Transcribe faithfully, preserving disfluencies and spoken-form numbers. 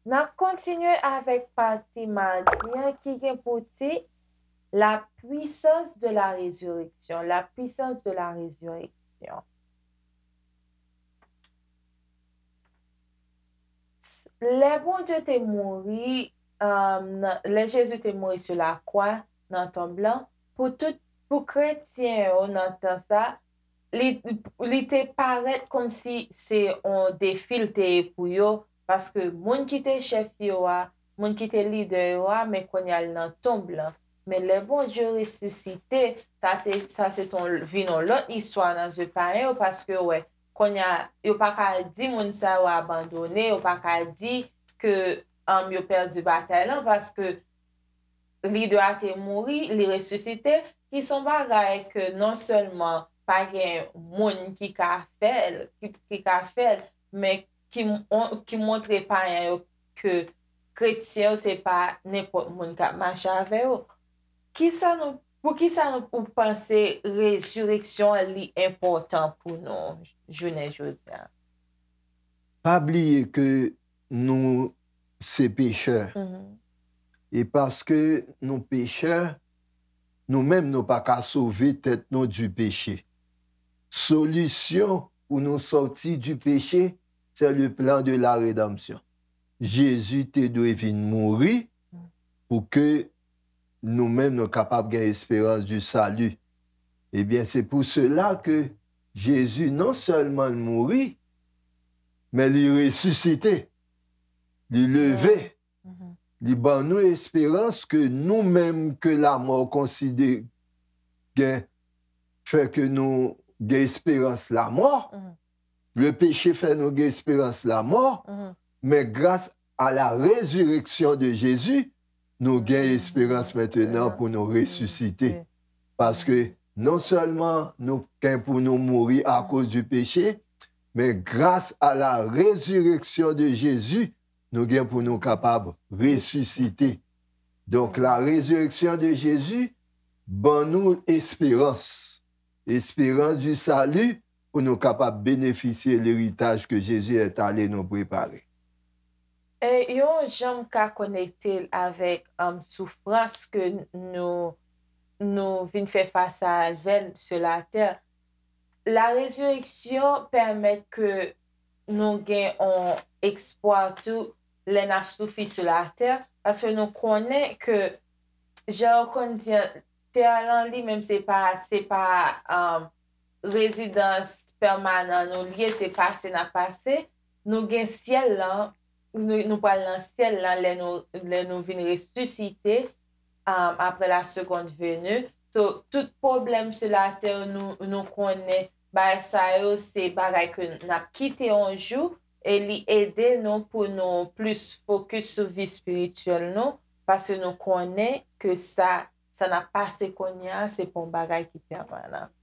N ap kontinye avèk pati madi an ki gen pou tit La puissance de la résurrection. La puissance de la résurrection. Lè Bondye te mouri, um, nan- lè Jezi te mouri sou lakwa, nan tonb lan, pou tout, pou kretyen yo nan tan sa, li, li te parèt kòmsi se yon defi l te ye pou yo, paske moun ki te chèf yo a, moun ki te lidè yo a, men kounye a l nan tonb lan. Men lè Bondye resisite, sa te, sa se ton, vin yon lòt istwa nan zye payen yo, paske yo wè, kounye a, yo pa ka di moun sa yo abandone, yo pa ka di ke um, yo pèdi batay lan, paske lidè a te mouri, li resisite, ki se yon bagay ke non sèlman pa gen moun ki ka fè l, ki, ki ka fè l, men ki, m- ki montre payen yo ke kretyen yo se pa nenpòt moun k ap mache avè yo. Kisa nou, poukisa nou, ou panse rezireksyon an li enpòtan pou nou jounen jodi a? Pa bliye ke nou se pechè. E paske nou pechè, nou menm nou pa ka sove tèt nou di peche. Solisyon pou nou sòti di peche, se le plan de la redanmsyon. Jezi te dwe vin mouri pou ke nou menm nou kapab gen esperans di sali. Ebyen, se pou sela ke Jezi non sèlman l mouri, men li resisite, li leve, li ban nou esperans ke nou menm ke lamò konsidere gen fè ke nou gen esperans lamò. Le peche fè nou gen esperans lamò, men gras a la rezireksyon de Jezi, nou gen esperans mentenan pou nou resisite. Paske non sèlman nou gen pou nou mouri akoz di peche, men gras a la rezireksyon de Jezi, nou gen pou nou kapab resisite. Donk, la rezireksyon de Jezi ban nou esperans. Esperans di sali pou nou kapab benefisye leritaj ke Jezi est allé nous préparer. E yon jan m ka konekte l avèk um, soufrans ke nou, nou vin fè fas avè l sou latè. La rezireksyon pèmèt ke nou gen yon espwa tou lè n ap soufri sou latè, paske nou konnen ke, jan yo konn di an, tè lan li menm se pa, se pa um, rezidans pèmanan nou l ye, se pase n ap pase. Nou gen syèl lan, nou, nou pral nan syèl lan lè nou, lè nou vin resisite um, après la seconde venue. So, tout pwoblèm sou latè nou, nou konnen bagay sa yo se bagay ke n ap kite yon jou e li ede nou pou nou plis fokis sou vi espirityèl nou paske nou konnen ke sa, sa n ap pase kounye a se pa yon bagay ki pèmanan.